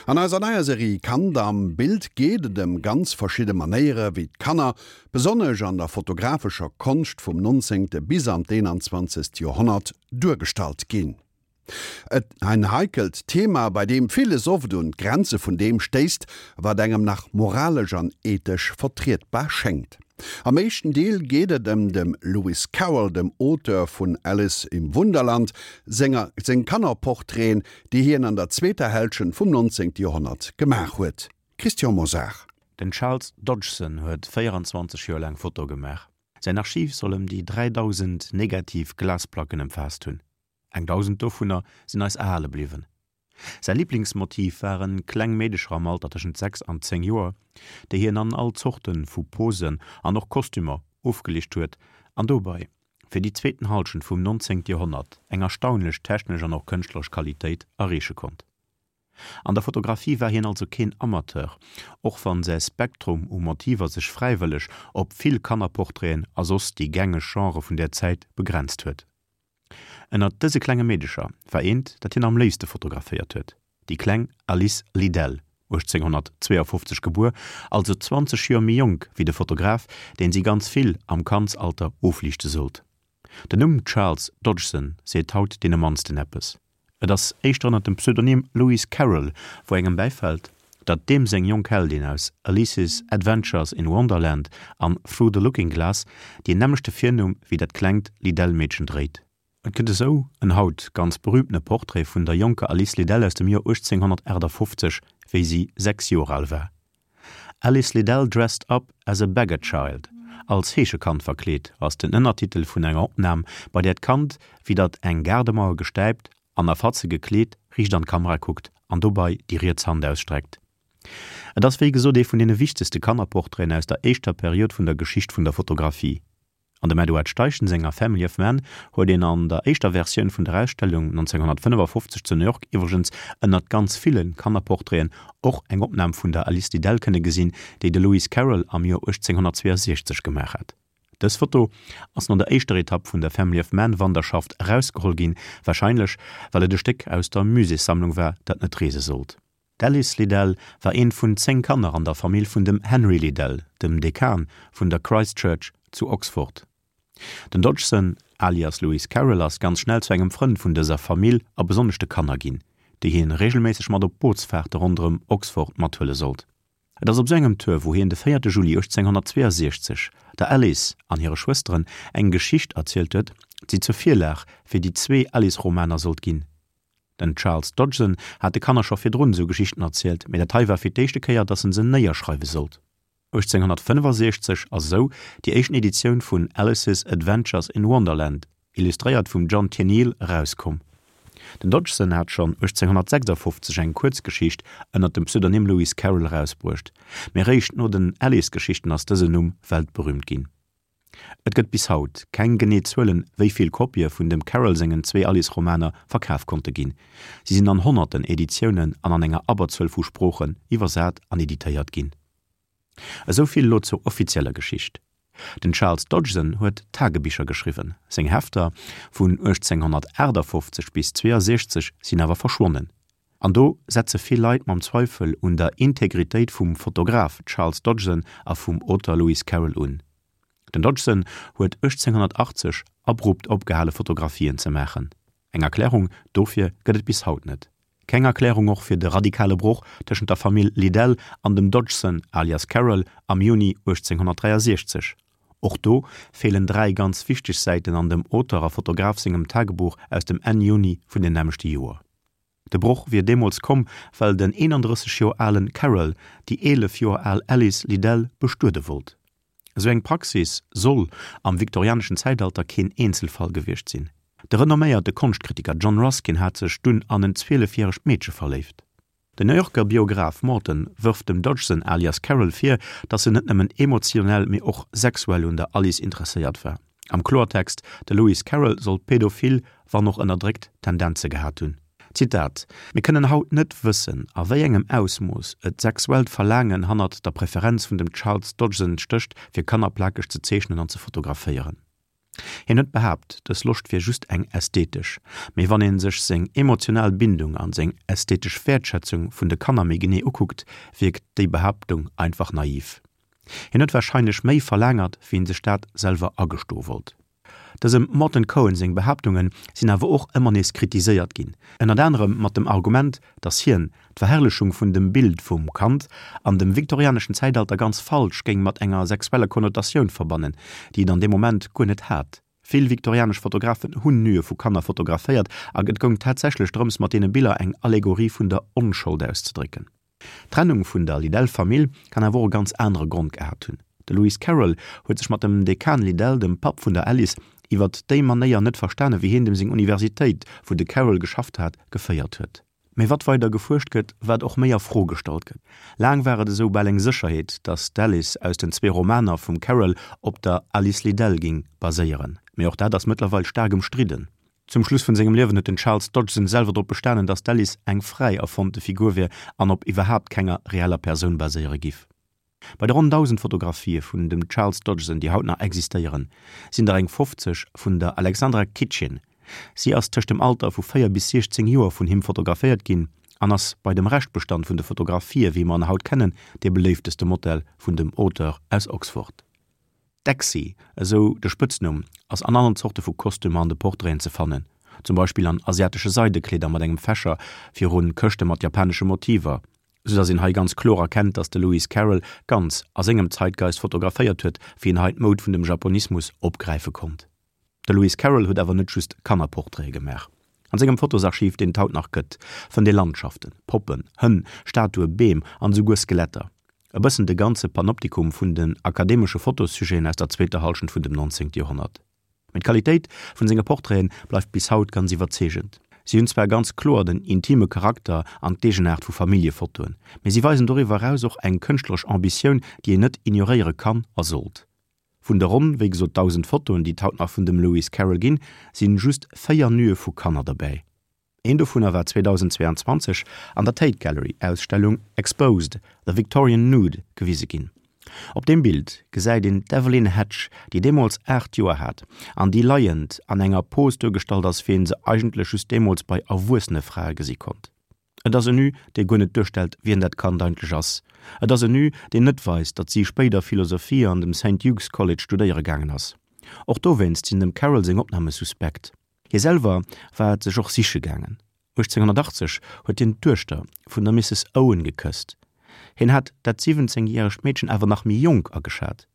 An eiser neier Serie Kand am Bild geet et ëm ganz verschidde Manéiere wéi d'Kanner, besonnesch an der fotografescher Konscht vum 19. bis an d'21. Joerhonnert, duergestallt ginn. Et en heikelt Thema, bei deem villes oft un d'Grenze vun deem stéisst, wat engem nach moralesch an ethesch vertrietbar schéngt. Am éischten Deel geet et ëm dem Lewis Carroll, dem Auteur vun Alice im Wunderland, senger seng Kannerportraiten, déi hien an der zweeter Hälschent vum 19. Joerhonnert gemaach huet. Christian Mosar. Den Charles Dodgson huet 24 Joer laang Fotoe gemaach. Säin Archiv soll ëm déi 3.000 negativ Glasplacken ëmfaasst hunn. Eng 1.000 dovunner sinn eis erhale bliwwen. Säi Liblingsmotiv ware kleng Meedecher am Alter tëschent 6 an 10 Joer, déi hien an all Zorte vu Posen an och Kostümer ofgeliicht huet an dobei fir déi zweeten Halschent vum 19. Joerhonnert eng erstaunlech technesch an och kënschtleresch Qualitéit erreeche konnt. An der Fotografie war hien also keen Amateur, och wann säi Spektrum u Motiver sech fräiwëlleg op vill Kannerportraiten a soss déi gängeg Genrë vun där Zäit begrenzt huet. Ënnert dëse klenge Meedecher war eent, dat hien am léifste fotograféiert huet, déi kleng Alice Liddell, 1852 gebuer, also 20 Joer méi jonk wéi de Fotograf, deen si ganz vill am Kandsalter ofliichte sollt. Den Numm Charles Dodgson seet haut deene mannsten eppes. Et ass éischter ënnert dem Pseudonym Lewis Carroll, wou engem bäifält, datt deem seng jonk Heldin aus Alice's Adventures in Wonderland an Through the Looking Glass deen nämmlechte Virnumm wéi dat klengt Liddell-Meedchen dréit. Et gëtt esou en haut ganz berüümtene Portrait vun der jonker Alice Liddell aus dem Joer 1858, wéi si 6 Joer al war. Alice Liddell dressed up as a beggar child, Als Heeschekand verkleet, ass den Ënnertitel vun enger Opnam, bei där d'Kand widdert eng Gaardemauer gestäipt an a Fatze gekleet riicht an d'Kamera kuckt an dobei déi riets Hand ausstreckt. Et ass wéi gesot ee vun deene wichtegste Kannerportraiten aus der éischter Period vun der Geschicht vun der Fotografie. An dem Edward Steichen senger Family of Man huet een an der éischter Versioun vun der Ausstellung 1955 zu New York iwwregens ënnert ganz ville Kannerportraiten och eng Opnam vun der Alice Liddell kënne gesinn, déi de Lewis Carroll am Joer 1862 gemaach hat. Dës Foto ass no der éischter Etapp vun der Family of Man Wanderschaft erausgeholl ginn, warscheinlech well et e Stéck aus der Muséessammlung war, dat net reese sollt. D'Alice Liddell war eent vun 10 Kanner an der Famill vun dem Henry Liddell, dem Dekan vun der Christ Church zu Oxford. Den Dodgson, alias Lewis Carroll, ass ganz schnell zu engem Frënd vun dëser Famill a besonnesch de Kanner ginn, déi hien reegelméisseg mat op Bootsfaarte ronderëm Oxford mathuele sollt. Et ass op sou engem Tour, wou hien de 4 Juli 1862 der Alice an hire Schwësteren eng Geschicht erzielt huet, déi zur Virlag fir déi zwee Alice-Romaner sollt ginn. Den Charles Dodgson hat de Kanner scho virdrun esou Geschichten erzielt, mee dat hei war fir d'éischte Kéier, datt en se néierschreiwe sollt. 1865 ass esou déi éischten Editioun vun Alice's Adventures in Wonderland, illustréiert vum John Tenniel, erauskomm. Den Dodgson hat schonn 1856 eng Kuerzgeschicht ënner dem Pseudonym Lewis Carroll erausbruecht, mee eréischt no den Alice-Geschichten ass dësen Numm weltberüümt ginn. Et gëtt bis haut keng genee Zuelen, wéi vill Kopië vun dem Carroll sengen zwee Alice-Romaner verkaf konnte ginn. Si sinn an honnerten Editiounen an an enger Abberzuel vu Sproochen iwwersat an editéiert ginn. Esou vill elo zur offizieller Geschicht. Den Charles Dodgson huet Tagebicher geschriwwen, seng Hefter vun 1858 bis 62 sinn awer verschwonnen. An do setze vill Leit mam Zweifel un der Integritéit vum Fotograf Charles Dodgson a vum Auteur Lewis Carroll un. Den Dodgson huet 1880 abrupt opgehale Fotografien ze maachen. Eng Erklärung dofir gëtt et bis haut net. Keng Erklärung och fir de radikale Broch tëschent der Famill Liddell an dem Dodgson alias Carroll am Juni 1863. Och do feelen 3 ganz wichteg Säiten an dem Auteur a Fotograf sengem Tagebuch aus dem Enn Juni vun dem nämmlechte Joer. De Broch wier deemools komm, well den 31 Joer alen Carroll déi 11 Joer al Alice Liddell bestuede wollt. Esou eng Praxis soll am viktorianeschen Zäitalter keen Eenzelfall gewiescht sinn. De renomméierte Konschtkritiker John Ruskin hat sech dunn an en zwielefjäregt Meedche verléift. Den New Yorker Biograph Morton wërft dem Dodgson alias Carroll vir, datt en net nëmmen emotionell, mee och sexuell un der Alice interesséiert war. Am Kloertext, de Lewis Carroll soll pädophil, wann och ënnerdréckt, Tendenze gehat hunn. Zitat, Mir kënnen haut net wëssen, a wéi engem Ausmooss et sexuellt Verlaangen hannert der Preferenz vun dem Charles Dodgson stécht, fir Kanner plakeg ze zeechnen an ze fotograféieren. Hien huet behaapt, dës Loscht wier just eng ästhetesch, mee wann een sech seng emotional Bindung an seng ästhetesch Wäertschätzung vun de Kanner méi genee ukuckt, wierkt déi Behaaptung einfach naiv. Hien huet warscheinlech méi verlaangert, wéi en sech dat selwer agestoe wollt. Dësem Morton Cohen seng Behaaptunge sinn awer och ëmmer nees kritiséiert ginn, ënnert anerem mat dem Argument, datt hien d'Verherrlechung vun dem Bild vum Kand an dem viktorianeschen Zäitalter ganz falsch géing mat enger sexueller Konnotatioun verbannen, déi et an deem Moment guer net hat. Vill viktorianesch Fotografen hunn Nue vu Kanner fotograféiert a et goung tatsächlech drëms mat deene Biller eng Allegorie vun der Onschold auszedrécken. D'Trennung vun der Liddell-Famill kann awer och e ganz anere Grond gehat hunn. De Lewis Carroll huet sech mat dem Dekan Liddell, dem Papp vun der Alice, iwwert déi Manéier net verstanen, wéi hien dem seng Universitéit, wou de Carroll geschafft hat, geféiert huet. Mee wat weider gefuerscht gëtt, wat och méi a Fro gestallt gëtt. Laang war et esou bal eng Sécherheet, datt d'Alice aus den zwee Romaner vum Carroll op der Alice Liddell ging baséieren. Mee och dat ass mëttlerweil staark ëmstridden. Zum Schluss vun sengem Liewen huet den Charles Dodgson selwer drop bestanen, datt d'Alice eng fräi erfonnte Figur wier an op iwwerhaapt kenger reeller Persoun baséiere giff. Bei de ronn 1.000 Fotografië vun dem Charles Dodgson, déi haut nach existéieren, sinn der eng 50 vun der Alexandra Kitchin. Si ass tëscht dem Alter vu 4 bis 16 Joer vun him fotograféiert ginn an ass bei dem Reschtbestand vun de Fotografië wéi mer en haut kennen, dee beléifteste Modell vun dem Auteur aus Oxford. D'Exy, esou de Spëtznumm, ass an allen Zorte vu Kostümer an de Portraiten ze fannen, zum Beispill an asiatesche Seidekleeder mat engem Fächer virun Këschte mat japanesche Motiver, sou dass een hei ganz kloer erkennt, dass de Lewis Carroll ganz a sengem Zeitgeist fotograféiert huet, wéi en hei d'Moud vun dem Japonismus opgräife konnt. De Lewis Carroll huet awer net just Kannerportraite gemaach. An sengem Fotosarchiv, deen et haut nach gëtt, fënnt ee Landschaften, Poppen, Hënn, Statue, Beem an esouguer Skeletter. E bëssen de ganze Panoptikum vun den akademesche Fotossujeten aus der zweeter Hallschent vun dem 19. Joerhonnert. Mee d'Qualitéit vun senge Portraite bleift bis haut ganz iwwerzeegend. Si hunn zwar ganz kloer den intime Charakter an d'Eegenaart vu Familljefotoen, mee si weisen doriwwer eraus och eng kënschtleresch Ambitioun, déi een net ignoréiere kann a sollt. Vun de ronn, wéi gesot, 1.000 Fotoen, déi et haut nach vun dem Lewis Carroll ginn, sinn just 4 Nue vu Kanner derbäi. Een dovunner war 2022 an der Tate Gallery Ausstellung Exposed, The Victorian Nude gewise ginn. Op deem Bild gesäit een d'Evelyn Hatch, déi deemools 8 Joer hat an déi leiend an enger Pose duergestallt ass, wéi een se eigentlech just deemools bei erwuessene Frae gesi konnt. Et ass en Nu, dee guer net duerstellt, wien dat Kand eigentlech ass. Et ass en Nu, deen net weist, datt si spéider Philosophie an dem Saint Hugh's College studéiere gaangen ass. Och dowéinst sinn dem Carroll seng Opname suspekt. Hie selwer war et sech och siche gaangen. 1880 huet hien d'Duechter vun der Misses Owen gekësst. Hien hat dat 17 järegt Meedchen awer nach méi jonk ageschat.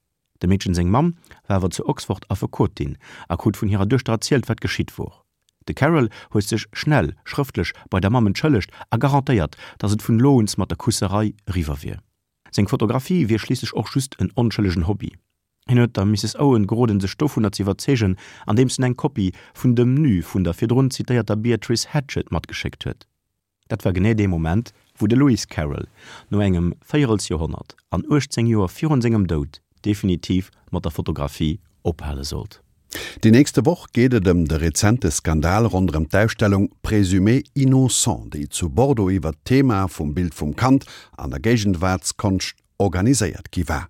Dem Meedchen seng Mamm war awer zu Oxford Affekotin a krut vun hirer Duechter erzielt, wat geschitt wor. De Carroll huet sech schnell schrëftlech bei der Mamm entschëllegt a garantéiert, datt et vun elo uns mat der Kusserei eriwwer wier. Seng Fotografie wier schliisslech och just en onschëllegen Hobby. Hien huet der Misses Owen geroden, sech dovunner ze iwwerzeegen, andeems en eng Kopie vun dem Nu vun der virdrun zitéierter Beatrice Hatchett matgeschéckt huet. Dat war genee dee Moment, wou de Lewis Carroll no engem Véierelsjoerhonnert an 18 Joer virun sengem Doud definitiv mat der Fotografie ophale sollt. Déi nächste Woch geet et ëm de rezente Skandal ronderëm d'Ausstellung Présumé innocent, déi zu Bordeaux iwwert d'Thema vum Bild vum Kand an der Géigenwaartskonscht organiséiert gi war.